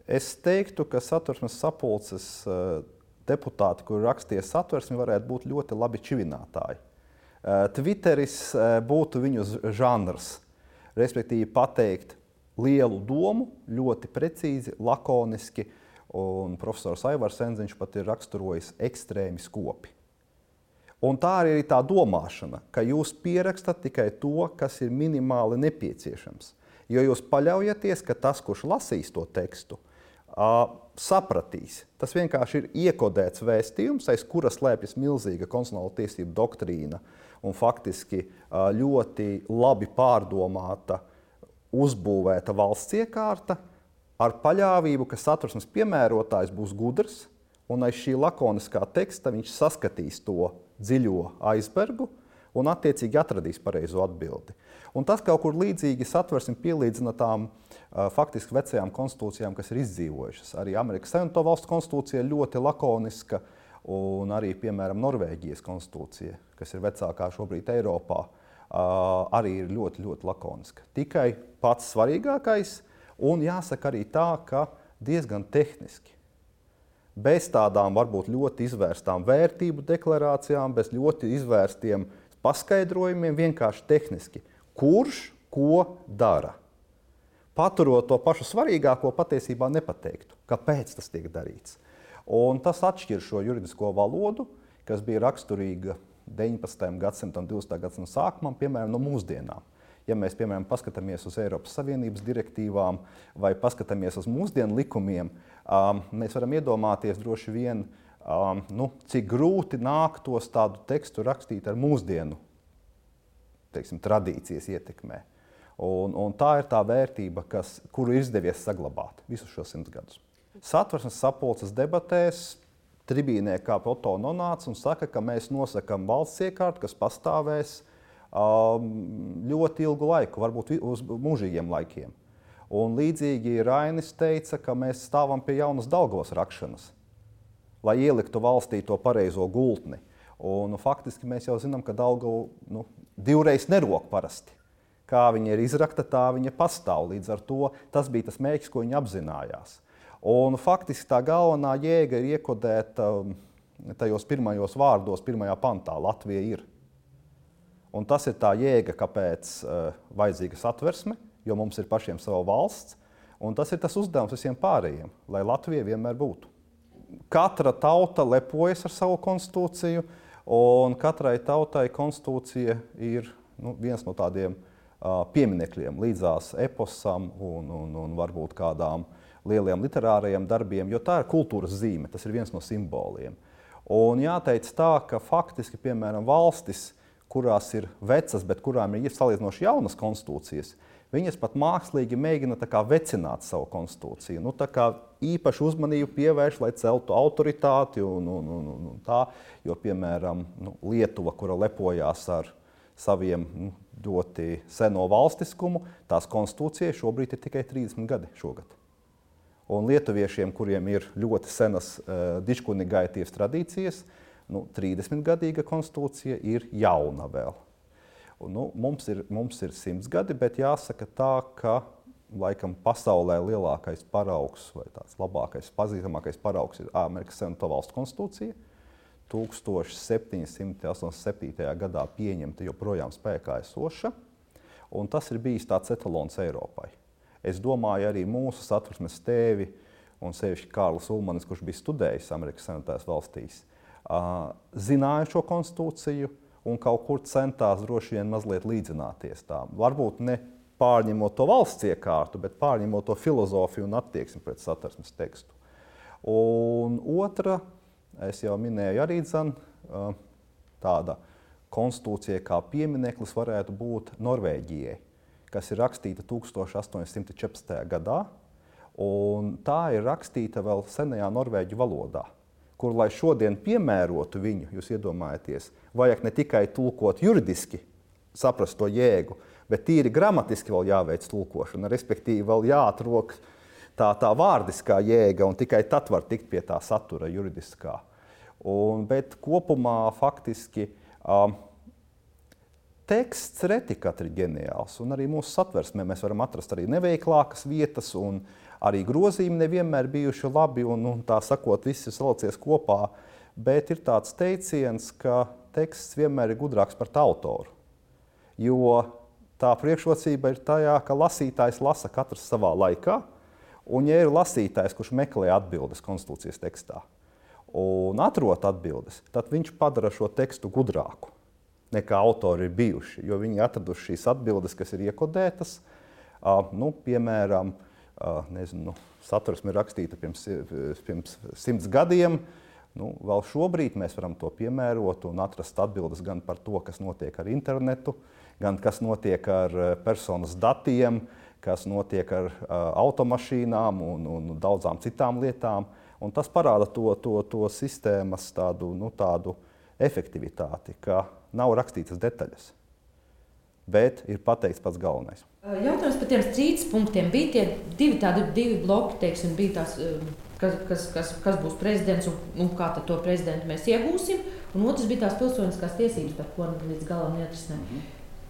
Es teiktu, ka Satversmes sapulces deputāti, kuri rakstīja satversmi, varētu būt ļoti labi čivinātāji. Twitteris būtu viņu žanrs, respektīvi pateikt lielu domu, ļoti precīzi, lakoniski, un profesors Aivars Enziņš pat ir raksturojis ekstrēmi skopi. Un tā arī ir tā domāšana, ka jūs pierakstat tikai to, kas ir minimāli nepieciešams. Jo jūs paļaujaties, ka tas, kurš lasīs to tekstu, sapratīs. Tas vienkārši ir iekodēts vēstījums, aiz kura slēpjas milzīga konstitucionāla tiesība doktrīna un faktiski ļoti labi pārdomāta, uzbūvēta valsts iekārta ar paļāvību, ka satversmes piemērotājs būs gudrs un aiz šī lakoniskā teksta viņš saskatīs to dziļo aizbergu un attiecīgi atradīs pareizo atbildi. Un tas kaut kur līdzīgi satversmi pielīdzina tām faktiski vecajām konstitūcijām, kas ir izdzīvojušas. Arī Amerikas Savienoto Valstu konstitūcija ļoti lakoniska un arī, piemēram, Norvēģijas konstitūcija, kas ir vecākā šobrīd Eiropā, arī ir ļoti, ļoti lakoniska. Tikai pats svarīgākais un jāsaka arī tā, ka diezgan tehniski. Bez tādām varbūt ļoti izvērstām vērtību deklarācijām, bez ļoti izvērstiem paskaidrojumiem, vienkārši tehniski. Kurš ko dara? Paturot to pašu svarīgāko, patiesībā nepateiktu, kāpēc tas tiek darīts. Un tas atšķir šo juridisko valodu, kas bija raksturīga 19. gadsimtam, 20. gadsimtam sākumam, piemēram, no mūsdienām. Ja mēs, piemēram, paskatāmies uz Eiropas Savienības direktīvām vai paskatāmies uz mūsdienu likumiem, mēs varam iedomāties droši vien, cik grūti nāktos tādu tekstu rakstīt ar mūsdienu, teiksim, tradīcijas ietekmē. Un tā ir tā vērtība, kuru izdevies saglabāt visus šos 100 gadus. Satversmes sapulces debatēs tribīnē kā Otto nonāca un saka, ka mēs nosakam valsts iekārtu, kas pastāvēs ļoti ilgu laiku, varbūt uz mūžīgiem laikiem. Un līdzīgi Rainis teica, ka mēs stāvam pie jaunas Daugavas rakšanas, lai ieliktu valstī to pareizo gultni. Un faktiski mēs jau zinām, ka Daugava divreiz nerok parasti. Kā viņa ir izrakta, tā viņa pastāv. Līdz ar to tas bija tas mērķis, ko viņa apzinājās. Un faktiski tā galvenā jēga ir iekodēta tajos pirmajos vārdos, pirmajā pantā – Latvija ir. Un tas ir tā jēga, kāpēc vajadzīga satversme, jo mums ir pašiem sava valsts, un tas ir tas uzdevums visiem pārējiem, lai Latvija vienmēr būtu. Katra tauta lepojas ar savu konstitūciju, un katrai tautai konstitūcija ir viens no tādiem pieminekļiem līdzās eposam un varbūt kādām lieliem literārajiem darbiem, jo tā ir kultūras zīme, tas ir viens no simboliem. Un jāteic tā, ka faktiski, piemēram, valstis, kurās ir vecas, bet kurām ir salīdzinoši jaunas konstitūcijas, viņas pat mākslīgi mēģina tā kā vecināt savu konstitūciju. Tā kā īpašu uzmanību pievērš, lai celtu autoritāti un tā, jo, piemēram, Lietuva, kura lepojās ar saviem ļoti seno valstiskumu, tās konstitūcija šobrīd ir tikai 30 gadi šogad. Un lietuviešiem, kuriem ir ļoti senas dičkunigaities tradīcijas, 30-gadīga konstitūcija ir jauna vēl. Mums ir 100 gadi, bet jāsaka tā, ka laikam pasaulē lielākais paraugs vai tāds labākais, pazīstamākais paraugs ir Amerikas Savienoto Valstu konstitūcija. 1787. gadā pieņemta joprojām spēkā esoša, un tas ir bijis tāds etalons Eiropai. Es domāju, arī mūsu satversmes tēvi, un sevišķi Kārlis Ulmanis, kurš bija studējis Amerikas Savienotajās valstīs, zināja šo konstitūciju un kaut kur centās droši vien mazliet līdzināties tām. Varbūt ne pārņemot to valsts iekārtu, bet pārņemot to filozofiju un attieksmi pret satversmes tekstu. Un otra, es jau minēju arī tāda konstitūcija kā piemineklis varētu būt Norvēģijai, kas ir rakstīta 1814. gadā, un tā ir rakstīta vēl senajā norvēģu valodā, kur, lai šodien piemērotu viņu, jūs iedomājaties, vajag ne tikai tulkot juridiski, saprast to jēgu, bet tīri gramatiski vēl jāveic tulkošana, respektīvi vēl jāatrok tā vārdiskā jēga, un tikai tad var tikt pie tā satura juridiskā. Bet kopumā faktiski teksts reti katri ģeniāls, un arī mūsu satversmē mēs varam atrast arī neveiklākas vietas, un Arī grozījumi nevienmēr bijuši labi un tā sakot, viss ir salicies kopā, bet ir tāds teiciens, ka teksts vienmēr ir gudrāks par tā autoru. Jo tā priekšrocība ir tajā, ka lasītājs lasa katrs savā laikā, un ja ir lasītājs, kurš meklē atbildes konstitūcijas tekstā un atrod atbildes, tad viņš padara šo tekstu gudrāku nekā autori ir bijuši, jo viņi atraduši šīs atbildes, kas ir iekodētas, piemēram, Satversme ir rakstīta pirms 100 gadiem. Vēl šobrīd mēs varam to piemērot un atrast atbildes gan par to, kas notiek ar internetu, gan kas notiek ar personas datiem, kas notiek ar automašīnām un daudzām citām lietām. Un tas parāda to sistēmas tādu efektivitāti, ka nav rakstītas detaļas, bet ir pateikts pats galvenais. Jautājums par tiem strīdus punktiem. Bija tie divi bloki, teiksim, bija tās, kas būs prezidents un kā tad to prezidentu mēs iegūsim, un otrs bija tās pilsoniskās tiesības, par ko līdz galam neatrisinājām.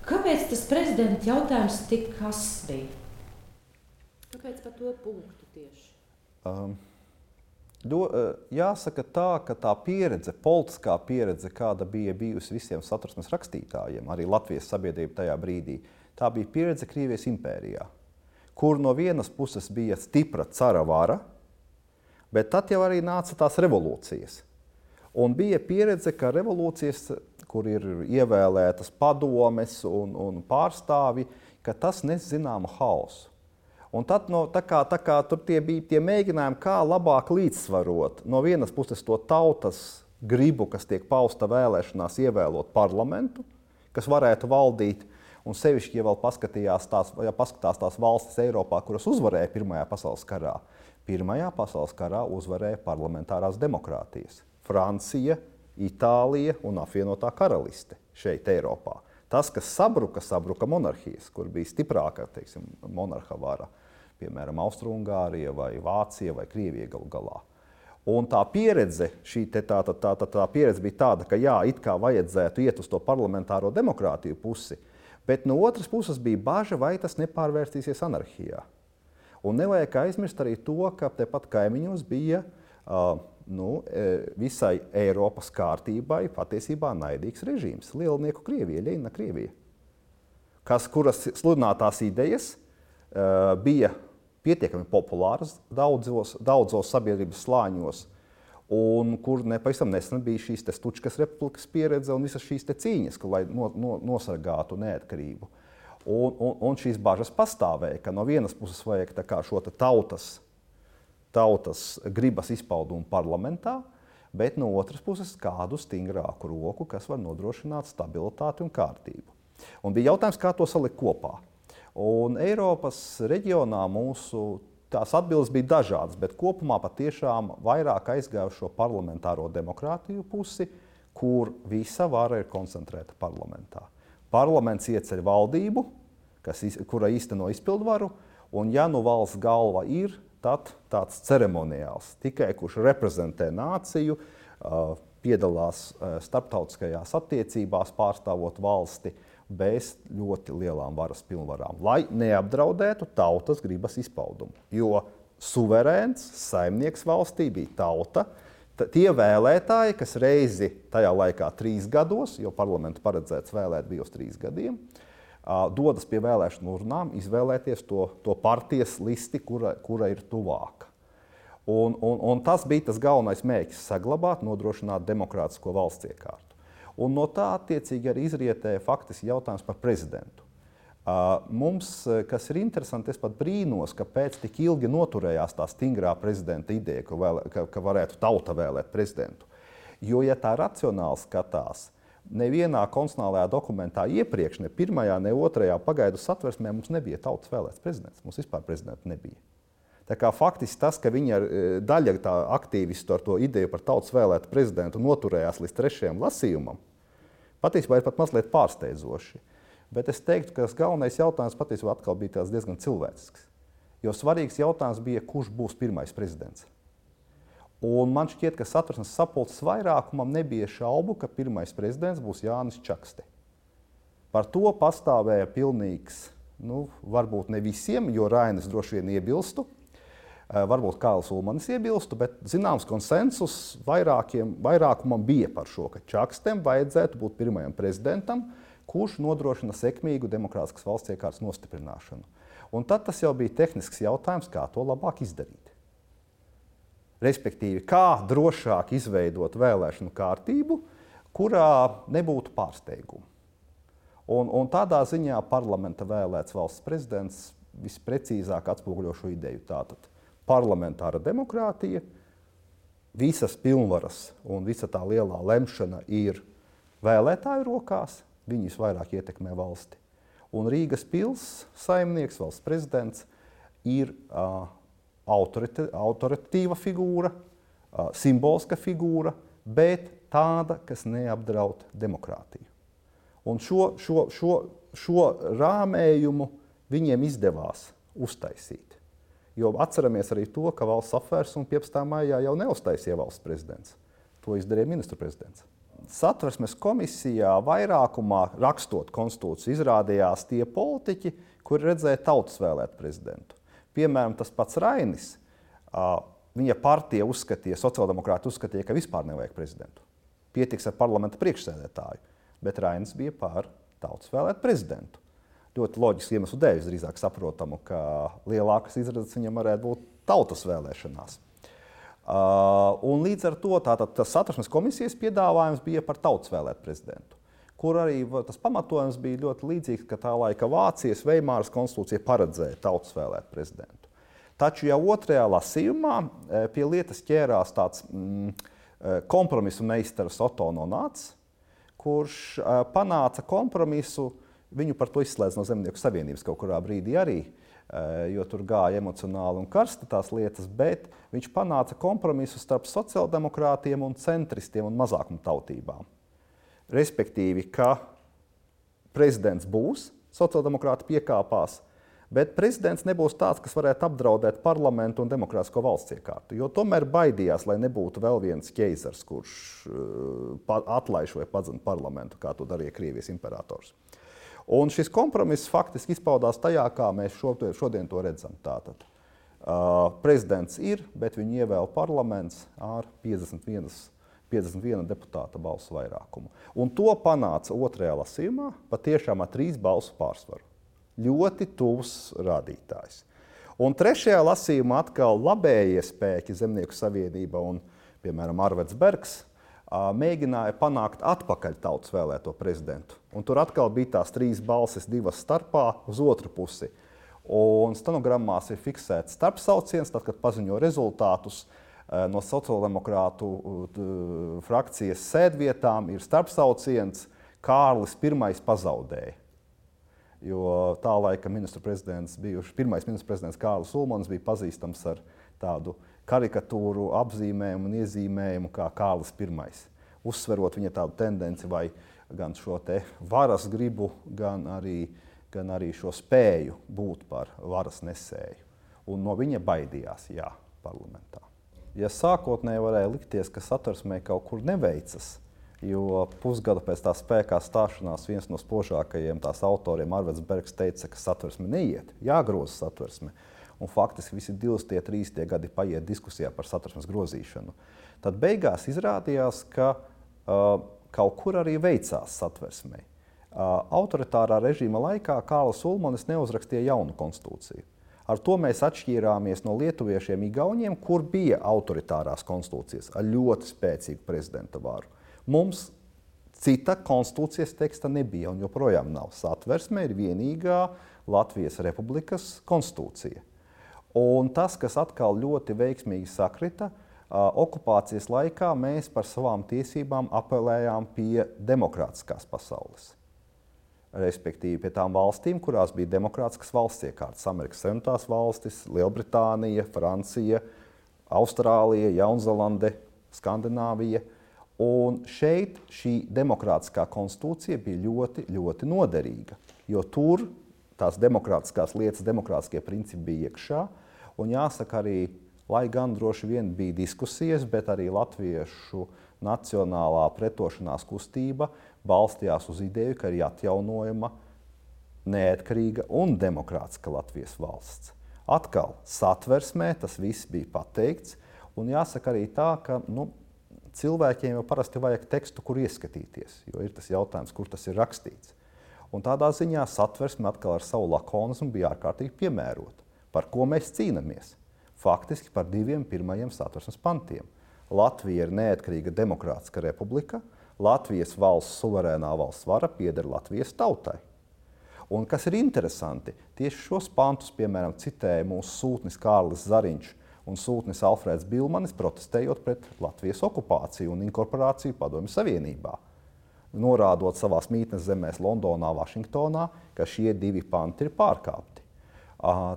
Kāpēc tas prezidenta jautājums tik kas bija? Kāpēc par to punktu tieši? Jāsaka tā, ka tā pieredze, politiskā pieredze, kāda bija bijusi visiem Satversmes rakstītājiem, arī Latvijas sabiedrība tajā brīdī, tā bija pieredze Krievijas impērijā, kur no vienas puses bija stipra cara vara, bet tad jau arī nāca tās revolūcijas. Un bija pieredze, ka revolūcijas, kur ir ievēlētas padomes un pārstāvi, ka tas nes zināmu haosu. Un tad tā kā tur bija tie mēģinājumi, kā labāk līdzsvarot no vienas puses to tautas gribu, kas tiek pausta vēlēšanās ievēlot parlamentu, kas varētu valdīt, un sevišķi, ja vēl paskatās tās valstis Eiropā, kuras uzvarēja Pirmajā pasaules karā. Pirmajā pasaules karā uzvarēja parlamentārās demokrātijas. Francija, Itālija un apvienotā karaliste šeit Eiropā. Tas, kas sabruka monarhijas, kur bija stiprāka, teiksim, monarha vara, piemēram, Austro-Ungārija vai Vācija vai Krievija galu galā. Un tā pieredze, tā pieredze bija tāda, ka jā, it kā vajadzētu iet uz to parlamentāro demokrātiju pusi, bet no otras puses bija baža, vai tas nepārvērstīsies anarhijā. Un nevajag aizmirst arī to, ka tepat kaimiņos bija visai Eiropas kārtībai patiesībā naidīgs režīms. Lielnieku Krievija, Ļeņina Krievija, kuras sludinātās idejas bija pietiekami populāras daudzos sabiedrības slāņos, un kur nepavisam nesen bija šīs Stučkas republikas pieredze un visas šīs cīņas, lai nosargātu neatkarību. Un šīs bažas pastāvēja, ka no vienas puses vajag šo tautas gribas izpaudumu parlamentā, bet no otras puses kādu stingrāku roku, kas var nodrošināt stabilitāti un kārtību. Un bija jautājums, kā to salikt kopā. Un Eiropas reģionā tās atbildes bija dažādas, bet kopumā patiešām vairāk aizgāja šo parlamentāro demokrātiju pusi, kur visa vara ir koncentrēta parlamentā. Parlaments ieceļ valdību, kura īsteno izpildvaru, un ja valsts galva ir, tad tāds ceremoniāls, tikai kurš reprezentē nāciju, piedalās starptautiskajās attiecībās, pārstāvot valsti bez ļoti lielām varas pilnvarām, lai neapdraudētu tautas gribas izpaudumu. Jo suverēns saimnieks valstī bija tauta, tie vēlētāji, kas reizi tajā laikā 3 gados, jo parlamentu paredzēts vēlēt bija uz 3 gadiem, dodas pie vēlēšanu urnām, izvēlēties to partijas listi, kura ir tuvāka. Un tas bija tas galvenais mērķis - saglabāt, nodrošināt demokrātisko valsts iekārtu. Un no tā attiecīgi arī izrietēja faktiski jautājums par prezidentu. Mums, kas ir interesanti, es pat brīnos, kāpēc tik ilgi noturējās tā stingrā prezidenta ideja, ka varētu tauta vēlēt prezidentu. Jo, ja tā racionāli skatās, nevienā konstitucionālajā dokumentā iepriekš, ne pirmajā, ne otrajā pagaidu satversmē mums nebija tautas vēlēts prezidents. Mums vispār prezidenta nebija. Tā kā faktiski tas, ka viņa daļa tā aktīvistu ar to ideju par tautas vēlētu prezidentu noturējās līdz 3. lasījumam, patiesībā ir pat mazliet pārsteidzoši. Bet es teiktu, ka tas galvenais jautājums patiesībā atkal bija diezgan cilvēcisks. Jo svarīgs jautājums bija, kurš būs pirmais prezidents. Un man šķiet, ka Satversmes sapulces vairākumam nebija šaubu, ka pirmais prezidents būs Jānis Čakste. Par to pastāvēja pilnīgs, varbūt ne visiem, jo Rainis droši vien iebilstu, Varbūt Kārlis Ulmanis iebilstu, bet zināms konsensus vairākumam bija par šo, ka Čakstem vajadzētu būt pirmajam prezidentam, kurš nodrošina sekmīgu demokrātiskas valsts iekārtas nostiprināšanu. Un tad tas jau bija tehnisks jautājums, kā to labāk izdarīt. Respektīvi, kā drošāk izveidot vēlēšanu kārtību, kurā nebūtu pārsteigumu. Un tādā ziņā parlamenta vēlēts valsts prezidents visprecīzāk atspoguļo šo ideju. Tātad parlamentāra demokrātija, visas pilnvaras un visa tā lielā lemšana ir vēlētāju rokās, viņi visvairāk ietekmē valsti. Un Rīgas pils saimnieks, valsts prezidents, ir autoritatīva figūra, simboliska figūra, bet tāda, kas neapdraud demokrātiju. Un šo rāmējumu viņiem izdevās uztaisīt. Jo atceramies arī to, ka valsts apvērsuma 15. maijā jau neuztaisīja valsts prezidents. To izdarīja ministru prezidents. Satversmes komisijā vairākumā rakstot konstitūciju izrādījās tie politiķi, kuri redzēja tautas vēlēt prezidentu. Piemēram, tas pats Rainis, viņa partija uzskatīja, sociāldemokrāti uzskatīja, ka vispār nevajag prezidentu. Pietiks ar parlamenta priekšsēdētāju, bet Rainis bija pār tautas vēlēt prezidentu. Ļoti loģiski iemeslu dēļ, drīzāk saprotamu, ka lielākas izredzes viņam varētu būt tautas vēlēšanās. Un līdz ar to tas Satversmes komisijas piedāvājums bija par tautas vēlēt prezidentu, kur arī tas pamatojums bija ļoti līdzīgs, ka tā laika Vācijas Veimāras konstitūcija paredzēja tautas vēlēt prezidentu. Taču jau otrajā lasījumā pie lietas ķērās tāds kompromisu meistars Oto no Nāc, kurš panāca kompromisu. Viņu par to izslēdz no Zemnieku savienības kaut kurā brīdī arī, jo tur gāja emocionāli un karsti tās lietas, bet viņš panāca kompromisu starp sociāldemokrātiem un centristiem un mazākumtautībām. Respektīvi, ka prezidents būs, sociāldemokrāti piekāpās, bet prezidents nebūs tāds, kas varētu apdraudēt parlamentu un demokrātisko valsts iekārtu, jo tomēr baidījās, lai nebūtu vēl viens ķeizars, kurš atlaiž vai padzina parlamentu, kā to darīja Krievijas imperators. Un šis kompromiss faktiski izpaudās tajā, kā mēs šodien to redzam. Tātad, prezidents ir, bet viņu ievēl parlaments ar 51 deputāta balsu vairākumu. Un to panāca otrajā lasījumā patiešām ar 3 balsu pārsvaru. Ļoti tuvs rādītājs. Un trešajā lasījumā atkal labējie spēki Zemnieku savienība un, piemēram, Arveds Bergs, mēģināja panākt atpakaļ tautas vēlēto prezidentu. Un tur atkal bija tās 3 balsis, 2 starpā uz otru pusi. Un stenogrammās ir fiksēts starpsauciens, tad, kad paziņo rezultātus no sociāldemokrātu frakcijas sēdvietām, ir starpsauciens Kārlis I pazaudēja. Jo tā laika pirmais ministru prezidents Kārlis Ulmanis bija pazīstams ar tādu karikatūru apzīmējumu un iezīmējumu kā Kārlis I. Uzsverot viņa tādu tendenci vai gan šo te varas gribu, gan arī šo spēju būt par varas nesēju. Un no viņa baidījās, parlamentā. Ja sākotnēji varēja likties, ka Satversmē kaut kur neveicas, jo pusgadu pēc tā spēkā stāšanās viens no spožākajiem tās autoriem, Arveds Bergs, teica, ka Satversme neiet, jāgroza Satversme. Un faktiski visi 2–3 gadi paiet diskusijā par Satversmes grozīšanu. Tad beigās izrādījās, ka kaut kur arī veicās Satversmei. Autoritārā režīma laikā Kārlis Ulmanis neuzrakstīja jaunu konstitūciju. Ar to mēs atšķīrāmies no lietuviešiem Igauniem, kur bija autoritārās konstitūcijas ar ļoti spēcīgu prezidenta varu. Mums cita konstitūcijas teksta nebija un joprojām nav. Satversme ir vienīgā Latvijas Republikas konstitūcija. Un tas, kas atkal ļoti veiksmīgi sakrita, okupācijas laikā mēs par savām tiesībām apelējām pie demokrātiskās pasaules. Respektīvi pie tām valstīm, kurās bija demokrātiskas valsts iekārtas. Amerikas Savienotās valstis, Lielbritānija, Francija, Austrālija, Jaunzēlande, Skandināvija. Un šeit šī demokrātiskā konstitūcija bija ļoti, ļoti noderīga, jo tur tās demokrātiskās lietas, demokrātiskie principi bija iekšā. Un jāsaka arī, lai gan droši vien bija diskusijas, bet arī latviešu nacionālā pretošanās kustība balstījās uz ideju, ka ir atjaunojama neatkarīga un demokrātiska Latvijas valsts. Atkal satversmē tas viss bija pateikts, un jāsaka arī tā, ka cilvēkiem jau parasti vajag tekstu, kur ieskatīties, jo ir tas jautājums, kur tas ir rakstīts. Un tādā ziņā satversme atkal ar savu lakonismu bija ārkārtīgi piemērota. Par ko mēs cīnāmies? Faktiski par 2 pirmajiem satversmes pantiem. Latvija ir neatkarīga demokrātiska republika, Latvijas valsts suverēnā valsts vara pieder Latvijas tautai. Un kas ir interesanti, tieši šos pantus, piemēram, citēja mūsu sūtnis Kārlis Zariņš un sūtnis Alfrēds Bilmanis, protestējot pret Latvijas okupāciju un inkorporāciju Padomju Savienībā, norādot savās mītnes zemēs Londonā, Vašingtonā, ka šie 2 panti ir pārkāpti.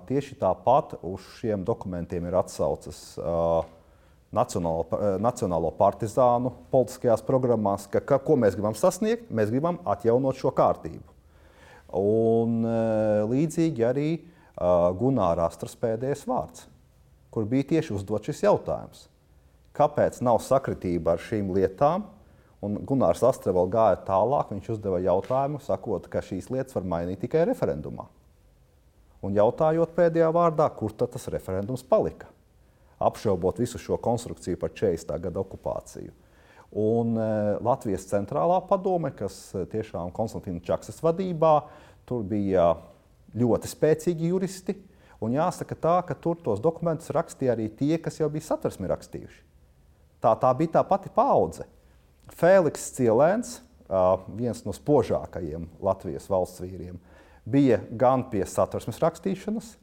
Tieši tāpat uz šiem dokumentiem ir atsaucas Nacionālo partizānu politiskajās programmās, ko mēs gribam sasniegt, mēs gribam atjaunot šo kārtību. Un līdzīgi arī Gunāra Astras pēdējais vārds, kur bija tieši uzdot šis jautājums. Kāpēc nav sakritība ar šīm lietām? Un Gunārs Astra vēl gāja tālāk, viņš uzdeva jautājumu, sakot, ka šīs lietas var mainīt tikai referendumā. Un jautājot pēdējā vārdā, kur tad tas referendums palika? Apšaubot visu šo konstrukciju par 40. gada okupāciju. Un Latvijas centrālā padome, kas tiešām Konstantīna Čaksas vadībā, tur bija ļoti spēcīgi juristi. Un jāsaka tā, ka tur tos dokumentus rakstīja arī tie, kas jau bija satversmi rakstījuši. Tā bija tā pati paudze. Fēliks Cielēns, viens no spožākajiem Latvijas valsts vīriem, bija gan pie satversmes rakstīšanas.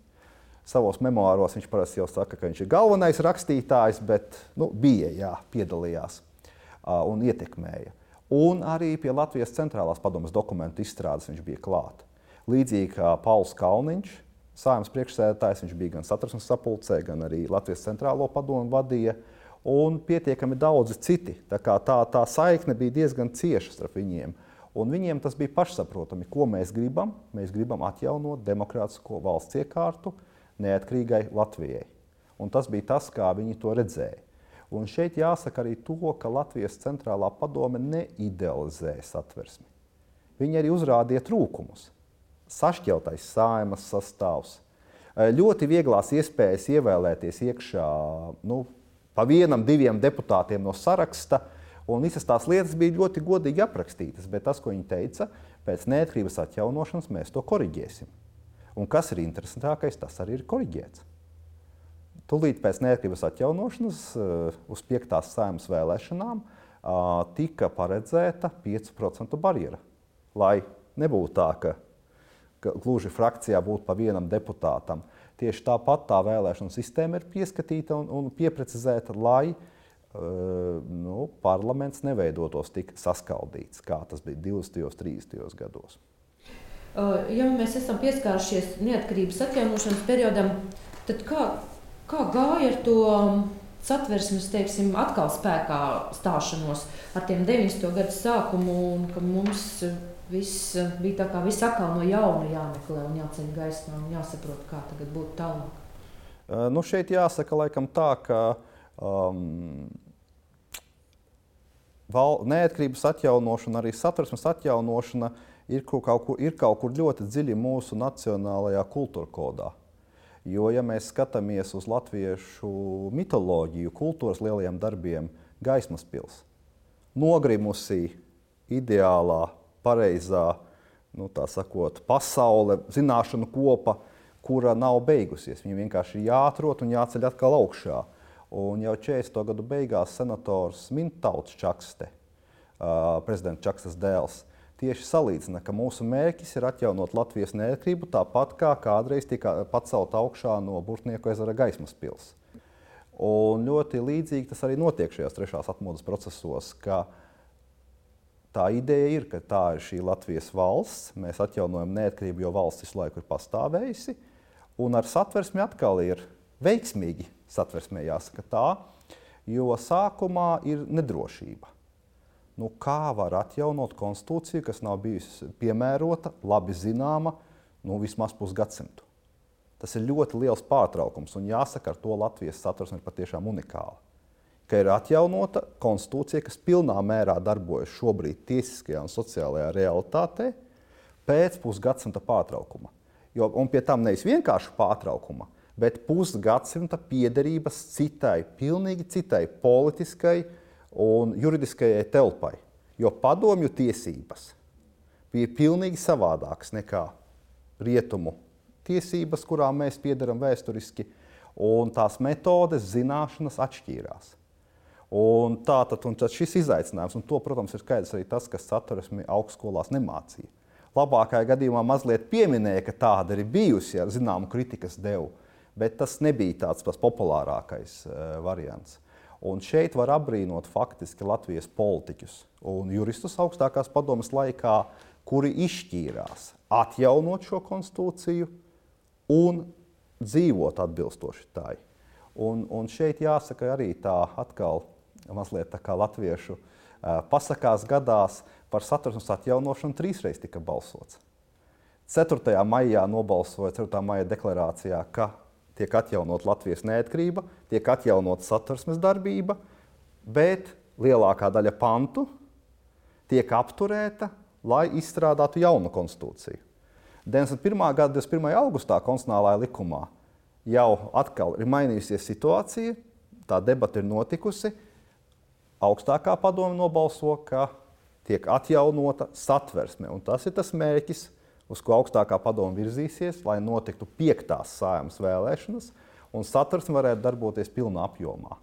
Savos memoāros viņš parasti jau saka, ka viņš ir galvenais rakstītājs, bet bija, piedalījās un ietekmēja. Un arī pie Latvijas centrālās padomes dokumentu izstrādes viņš bija klāt. Līdzīgi kā Pauls Kalniņš, Saeimas priekšsēdētājs, viņš bija gan satversmes sapulcē, gan arī Latvijas centrālo padomu vadīja, un pietiekami daudzi citi. Tā saikne bija diezgan cieša starp viņiem. Un viņiem tas bija pašsaprotami, ko mēs gribam. Mēs gribam atjaunot demokrātisko valsts iekārtu neatkarīgai Latvijai. Un tas bija tas, kā viņi to redzēja. Un šeit jāsaka arī to, ka Latvijas centrālā padome neidealizēja satversmi. Viņi arī uzrādīja trūkumus. Sašķeltais Saeimas sastāvs, ļoti vieglās iespējas ievēlēties iekšā pa 1-2 deputātiem no saraksta, un visas tās lietas bija ļoti godīgi aprakstītas, bet tas, ko viņi teica, pēc neatkarības atjaunošanas mēs to koriģēsim. Un kas ir interesantākais, tas arī ir koriģēts. Tūlīt pēc neatkarības atjaunošanas uz 5. Saeimas vēlēšanām tika paredzēta 5% barjera, lai nebūtu tā, ka gluži frakcijā būtu pa 1 deputātam. Tieši tāpat tā vēlēšana sistēma ir pieskatīta un pieprecizēta, lai parlaments neveidotos tik saskaldīts, kā tas bija 20. un 30. gados. Ja mēs esam pieskārušies neatkarības atjaunošanas periodam, tad kā gāja ar to satversmes, teiksim, atkal spēkā stāšanos ar tiem 90. gadu sākumu, un ka mums viss bija tā kā viss atkal no jauna jāmeklē un jāceļ gaismā un jāsaprot, kā tagad būtu tālāk? Šeit jāsaka laikam tā, ka neatkarības atjaunošana, arī satversmes atjaunošana ir kaut kur ļoti dziļi mūsu nacionālajā kultūra kodā. Jo, ja mēs skatāmies uz latviešu mitoloģiju, kultūras lielajiem darbiem, Gaismas pils, nogrimusī, ideālā, pareizā, tā sakot, pasaule, zināšanu kopa, kura nav beigusies. Viņa vienkārši ir jāatrod un jāceļ atkal augšā. Un jau 40. gadu beigās senators Mintauts Čakste, prezidenta Čakstas dēls, tieši salīdzina, ka mūsu mērķis ir atjaunot Latvijas neatkarību tāpat kā kādreiz tika pacelt augšā no Burtnieku ezera Gaismas pils. Un ļoti līdzīgi tas arī notiek šajās 3. atmodas procesos, ka tā ideja ir, ka tā ir šī Latvijas valsts, mēs atjaunojam neatkarību, jo valsts visu laiku ir pastāvējusi, un ar satversmi atkal ir veiksmīgi satversmē jāsaka tā, jo sākumā ir nedrošība. Kā var atjaunot konstitūciju, kas nav bijusi piemērota, labi zināma, vismaz pusgadsimtu? Tas ir ļoti liels pārtraukums, un jāsaka, ar to Latvijas satversme ir patiešām unikāla. Ka ir atjaunota konstitūcija, kas pilnā mērā darbojas šobrīd tiesiskajā un sociālajā realitātē pēc pusgadsimta pārtraukuma. Un pie tam nevis vienkārši pārtraukuma, bet pusgadsimta piederības citai, pilnīgi citai politiskai un juridiskajai telpai. Jo padomju tiesības bija pilnīgi savādākas nekā rietumu tiesības, kurām mēs piederam vēsturiski, un tās metodes, zināšanas atšķīrās. Un tad šis izaicinājums, un to, protams, ir skaidrs arī tas, kas Satversmi augstskolās nemācīja. Labākajā gadījumā mazliet pieminēja, ka tāda ir bijusi, ar zināmu kritikas devu, bet tas nebija tāds populārākais variants. Un šeit var apbrīnot faktiski Latvijas politiķus un juristus augstākās padomes laikā, kuri izšķīrās atjaunot šo konstitūciju un dzīvot atbilstoši tai. Un šeit jāsaka arī tā atkal mazliet tā kā latviešu pasakās gadās par Satversmes atjaunošanu 3 reizes tika balsots. 4. maijā nobalsoja 4. maija deklarācijā, ka tiek atjaunot Latvijas neatkarība, tiek atjaunot Satversmes darbība, bet lielākā daļa pantu tiek apturēta, lai izstrādātu jaunu konstitūciju. 91. gada 21. augustā konstitucionālajā likumā jau atkal ir mainījusies situācija, tā debata ir notikusi, augstākā padome nobalso, ka tiek atjaunota Satversme. Un tas ir tas mērķis, uz ko augstākā padome virzīsies, lai notiktu 5. Saeimas vēlēšanas, un Satversme varētu darboties pilnā apjomā.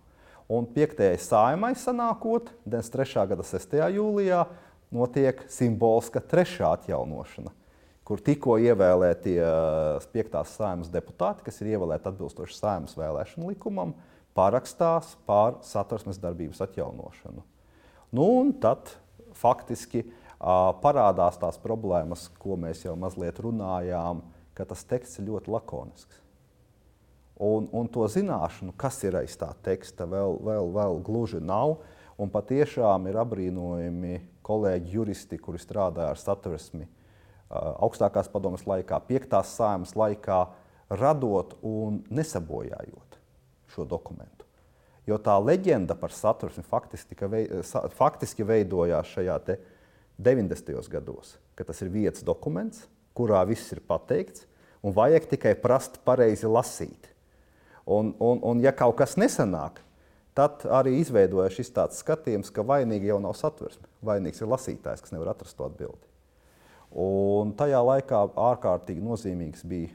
Un 5. Saeimai sanākot, 93. gada 6. jūlijā, notiek simboliska 3. atjaunošana, kur tikko ievēlētie 5. Saeimas deputāti, kas ir ievēlēti atbilstoši Saeimas vēlēšanu likumam, parakstās par Satversmes darbības atjaunošanu. Un tad faktiski parādās tās problēmas, ko mēs jau mazliet runājām, ka tas teksts ir ļoti lakonisks. Un to zināšanu, kas ir aiz tā teksta, vēl gluži nav. Un patiešām ir apbrīnojami kolēģi juristi, kuri strādāja ar Satversmi augstākās padomes laikā, 5. Saeimas laikā, radot un nesabojājot šo dokumentu. Jo tā leģenda par Satversmi faktiski veidojās šajā 90. gados, ka tas ir viens dokuments, kurā viss ir pateikts, un vajag tikai prast pareizi lasīt. Un ja kaut kas nesanāk, tad arī izveidojas šis tāds skatījums, ka vainīgi jau nav Satversme. Vainīgs ir lasītājs, kas nevar atrast to atbildi. Un tajā laikā ārkārtīgi nozīmīgs bija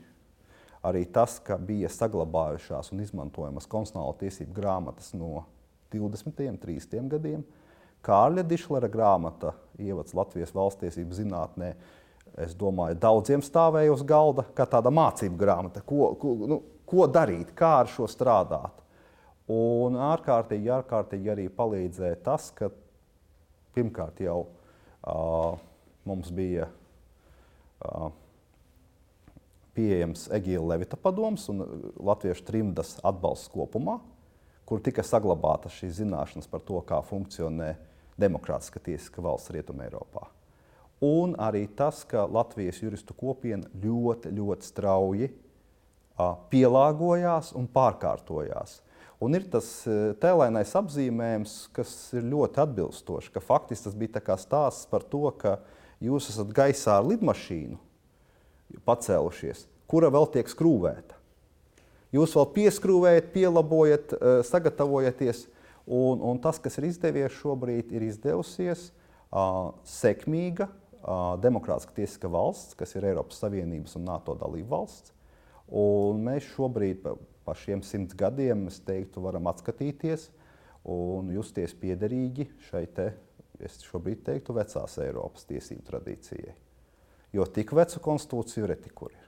arī tas, ka bija saglabājušās un izmantojamas konstitucionālo tiesību grāmatas no 20. un 30. gadiem. Kārļa Dišlera grāmata Ievads Latvijas valstiesību zinātnē, es domāju, daudziem stāvēja uz galda kā tāda mācību grāmata. Ko darīt, kā ar šo strādāt? Un ārkārtīgi arī palīdzēja tas, ka pirmkārt jau mums bija pieejams Egīla Levita padoms un latviešu trimdas atbalsts kopumā, kur tika saglabātas šīs zināšanas par to, kā funkcionē demokrātiska tiesiska valsts Rietumē Eiropā. Un arī tas, ka Latvijas juristu kopiena ļoti strauji pielāgojās un pārkārtojās. Un ir tas tēlainais apzīmējums, kas ir ļoti atbilstoši, ka faktiski tas bija tā kā stāsts par to, ka jūs esat gaisā ar lidmašīnu pacēlušies, kura vēl tiek skrūvēta. Jūs vēl pieskrūvējat, pielabojat, sagatavojaties, un tas, kas ir izdevies šobrīd, ir izdevusies sekmīga demokrātiska tiesiska valsts, kas ir Eiropas Savienības un NATO dalība valsts. Un mēs šobrīd pa šiem 100 gadiem, es teiktu, varam atskatīties un justies piederīgi šai es šobrīd teiktu, vecās Eiropas tiesību tradīcijai. Jo tik vecu konstitūciju reti kur ir.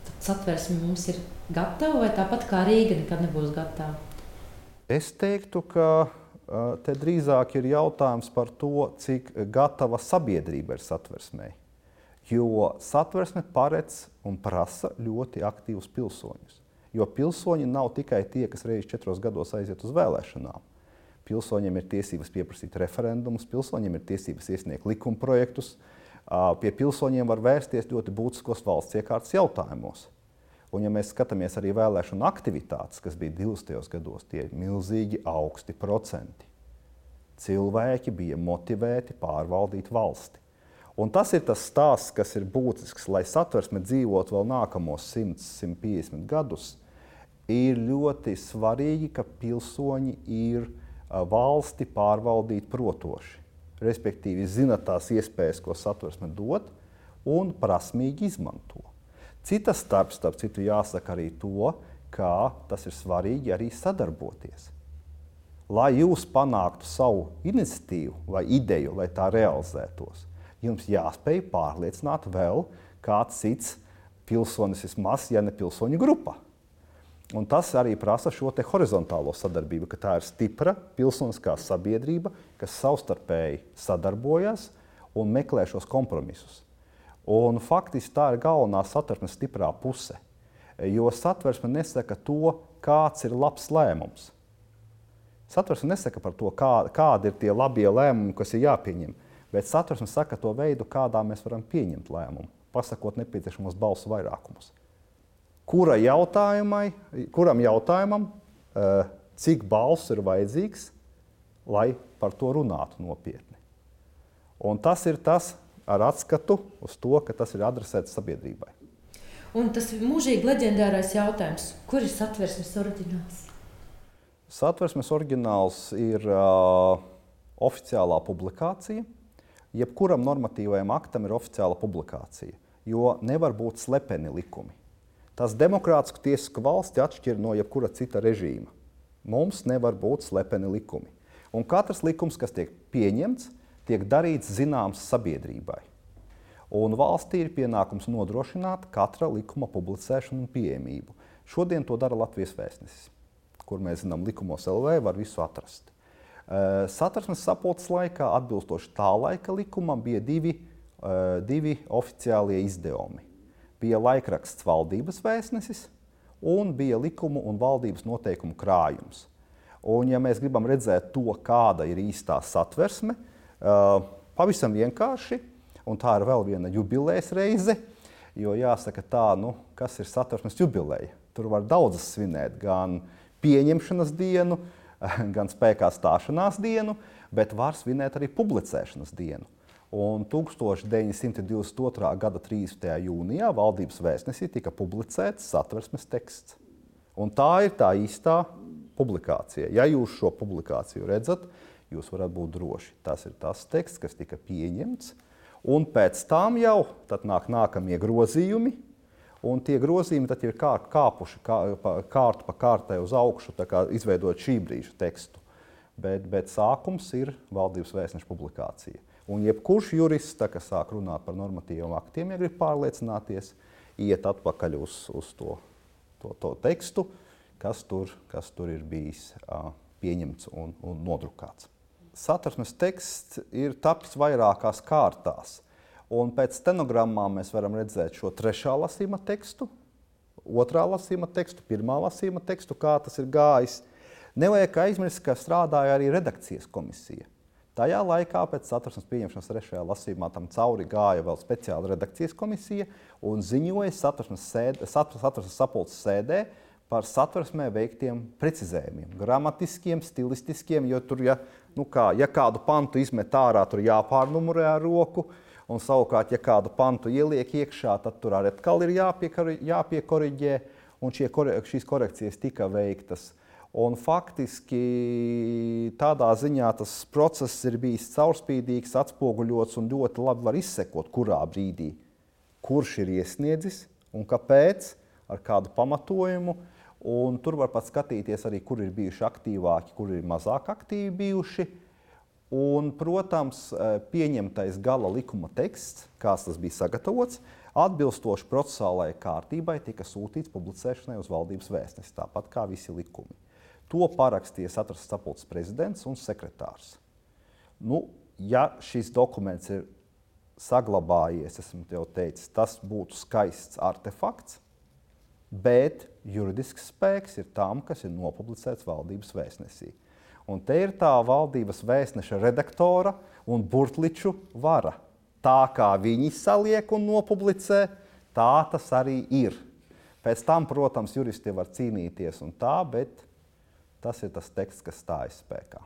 Tad Satversme mums ir gatava vai tāpat kā Rīga nekad nebūs gatava? Es teiktu, ka te drīzāk ir jautājums par to, cik gatava sabiedrība ir Satversmei. Jo Satversme paredz un prasa ļoti aktīvus pilsoņus. Jo pilsoņi nav tikai tie, kas reiz 4 gados aiziet uz vēlēšanām. Pilsoņiem ir tiesības pieprasīt referendumus, pilsoņiem ir tiesības iesniegt likumprojektus, pie pilsoņiem var vērsties ļoti būtiskos valsts iekārtas jautājumos. Un ja mēs skatāmies arī vēlēšanu aktivitātes, kas bija 20. gados, tie ir milzīgi augsti procenti. Cilvēki bija motivēti pārvaldīt valsti. Un tas ir tas stāsts, kas ir būtisks, lai Satversme dzīvot vēl nākamos 100, 150 gadus. ir ļoti svarīgi, ka pilsoņi ir valsti pārvaldīt protoši. Respektīvi, zina tās iespējas, ko Satversme dod, un prasmīgi izmanto. Citas starp citu jāsaka arī to, ka tas ir svarīgi arī sadarboties. Lai jūs panāktu savu iniciatīvu vai ideju, lai tā realizētos, jums jāspēj pārliecināt vēl kāds cits pilsonis vismaz, ja ne pilsoņu grupa. Un tas arī prasa šo te horizontālo sadarbību, ka tā ir stipra pilsoniskā sabiedrība, kas savstarpēji sadarbojas un meklē šos kompromisus. Un faktiski tā ir galvenā Satversmes stiprā puse, jo Satversme nesaka to, kāds ir labs lēmums. Satversme nesaka par to, kādi ir tie labie lēmumi, kas ir jāpieņem, bet Satversme saka to veidu, kādā mēs varam pieņemt lēmumu, pasakot nepieciešamos balsu vairākumus. Kuram jautājumam, cik balsu ir vajadzīgs, lai par to runātu nopietni. Un tas ir tas ar atskatu uz to, ka tas ir adresēts sabiedrībai. Un tas mūžīgi leģendārais jautājums, kur ir Satversmes oriģināls? Satversmes oriģināls ir oficiālā publikācija. Jebkuram normatīvajam aktam ir oficiāla publikācija, jo nevar būt slepeni likumi. Tas demokrātisku tiesisku valsti atšķir no jebkura cita režīma. Mums nevar būt slepeni likumi. Un katrs likums, kas tiek pieņemts, tiek darīts zināms sabiedrībai. Un valstī ir pienākums nodrošināt katra likuma publicēšanu un pieejamību. Šodien to dara Latvijas Vēstnesis, kur mēs zinām likumos LV var visu atrast. Satversmes sapulces laikā, atbilstoši tā laika likumam, bija divi oficiālie izdevumi. Bija laikraksts Valdības Vēstnesis un bija likumu un valdības noteikumu krājums. Un, ja mēs gribam redzēt to, kāda ir īstā Satversme, pavisam vienkārši, un tā ir vēl viena jubilejas reize, jo jāsaka tā, kas ir Satversmes jubileja. Tur var daudzas svinēt, gan pieņemšanas dienu, gan spēkā stāšanās dienu, bet var svinēt arī publicēšanas dienu. Un 1922. gada 30. jūnijā Valdības Vēstnesī tika publicēts Satversmes teksts. Un tā ir tā īstā publikācija. Ja jūs šo publikāciju redzat, jūs varat būt droši. Tas ir tas teksts, kas tika pieņemts. Un pēc tam jau tad nāk nākamie grozījumi. Un tie grozījumi tad ir kāpuši kārtu pa kārtai uz augšu, tā kā izveidot šī brīža tekstu. Bet sākums ir Valdības Vēstneša publikācija. Un jebkurš jurists, kas sāk runāt par normatīviem aktiem, ja grib pārliecināties, iet atpakaļ uz to tekstu, kas tur ir bijis pieņemts un nodrukāts. Satversmes teksts ir tapis vairākās kārtās. Un pēc stenogrammām mēs varam redzēt šo 3. lasījuma tekstu, 2. lasījuma tekstu, 1. lasījuma tekstu, kā tas ir gājis. Nevajag aizmirst, ka strādāja arī redakcijas komisija. Tajā laikā pēc Satversmes pieņemšanas 3. lasījumā tam cauri gāja vēl speciāla redakcijas komisija un ziņoja Satversmes sapulces sēdē par Satversmē veiktiem precizējumiem, gramatiskiem, stilistiskiem, jo tur, ja kādu pantu izmet ārā, tur jāpārnumurē ar roku, un savukārt, ja kādu pantu ieliek iekšā, tad tur arī atkal ir jāpiekoriģē, un šīs korekcijas tika veiktas. Un faktiski tādā ziņā tas process ir bijis caurspīdīgs, atspoguļots un ļoti labi var izsekot, kurā brīdī, kurš ir iesniedzis un kāpēc, ar kādu pamatojumu. Un tur var pat skatīties arī, kur ir bijuši aktīvāki, kur ir mazāk aktīvi bijuši. Un, protams, pieņemtais gala likuma teksts, kāds tas bija sagatavots, atbilstoši procesālajai kārtībai tika sūtīts publicēšanai uz Valdības Vēstnesi, tāpat kā visi likumi. To parakstīja Satversmes sapulces prezidents un sekretārs. Ja šis dokuments ir saglabājies, esmu tev teicis, tas būtu skaists artefakts, bet juridisks spēks ir tam, kas ir nopublicēts Valdības Vēstnesī. Un te ir tā Valdības Vēstneša redaktora un burtliču vara. Tā kā viņi saliek un nopublicē, tā tas arī ir. Pēc tam, protams, juristi var cīnīties un tā, bet tas ir tas teksts, kas stājas spēkā.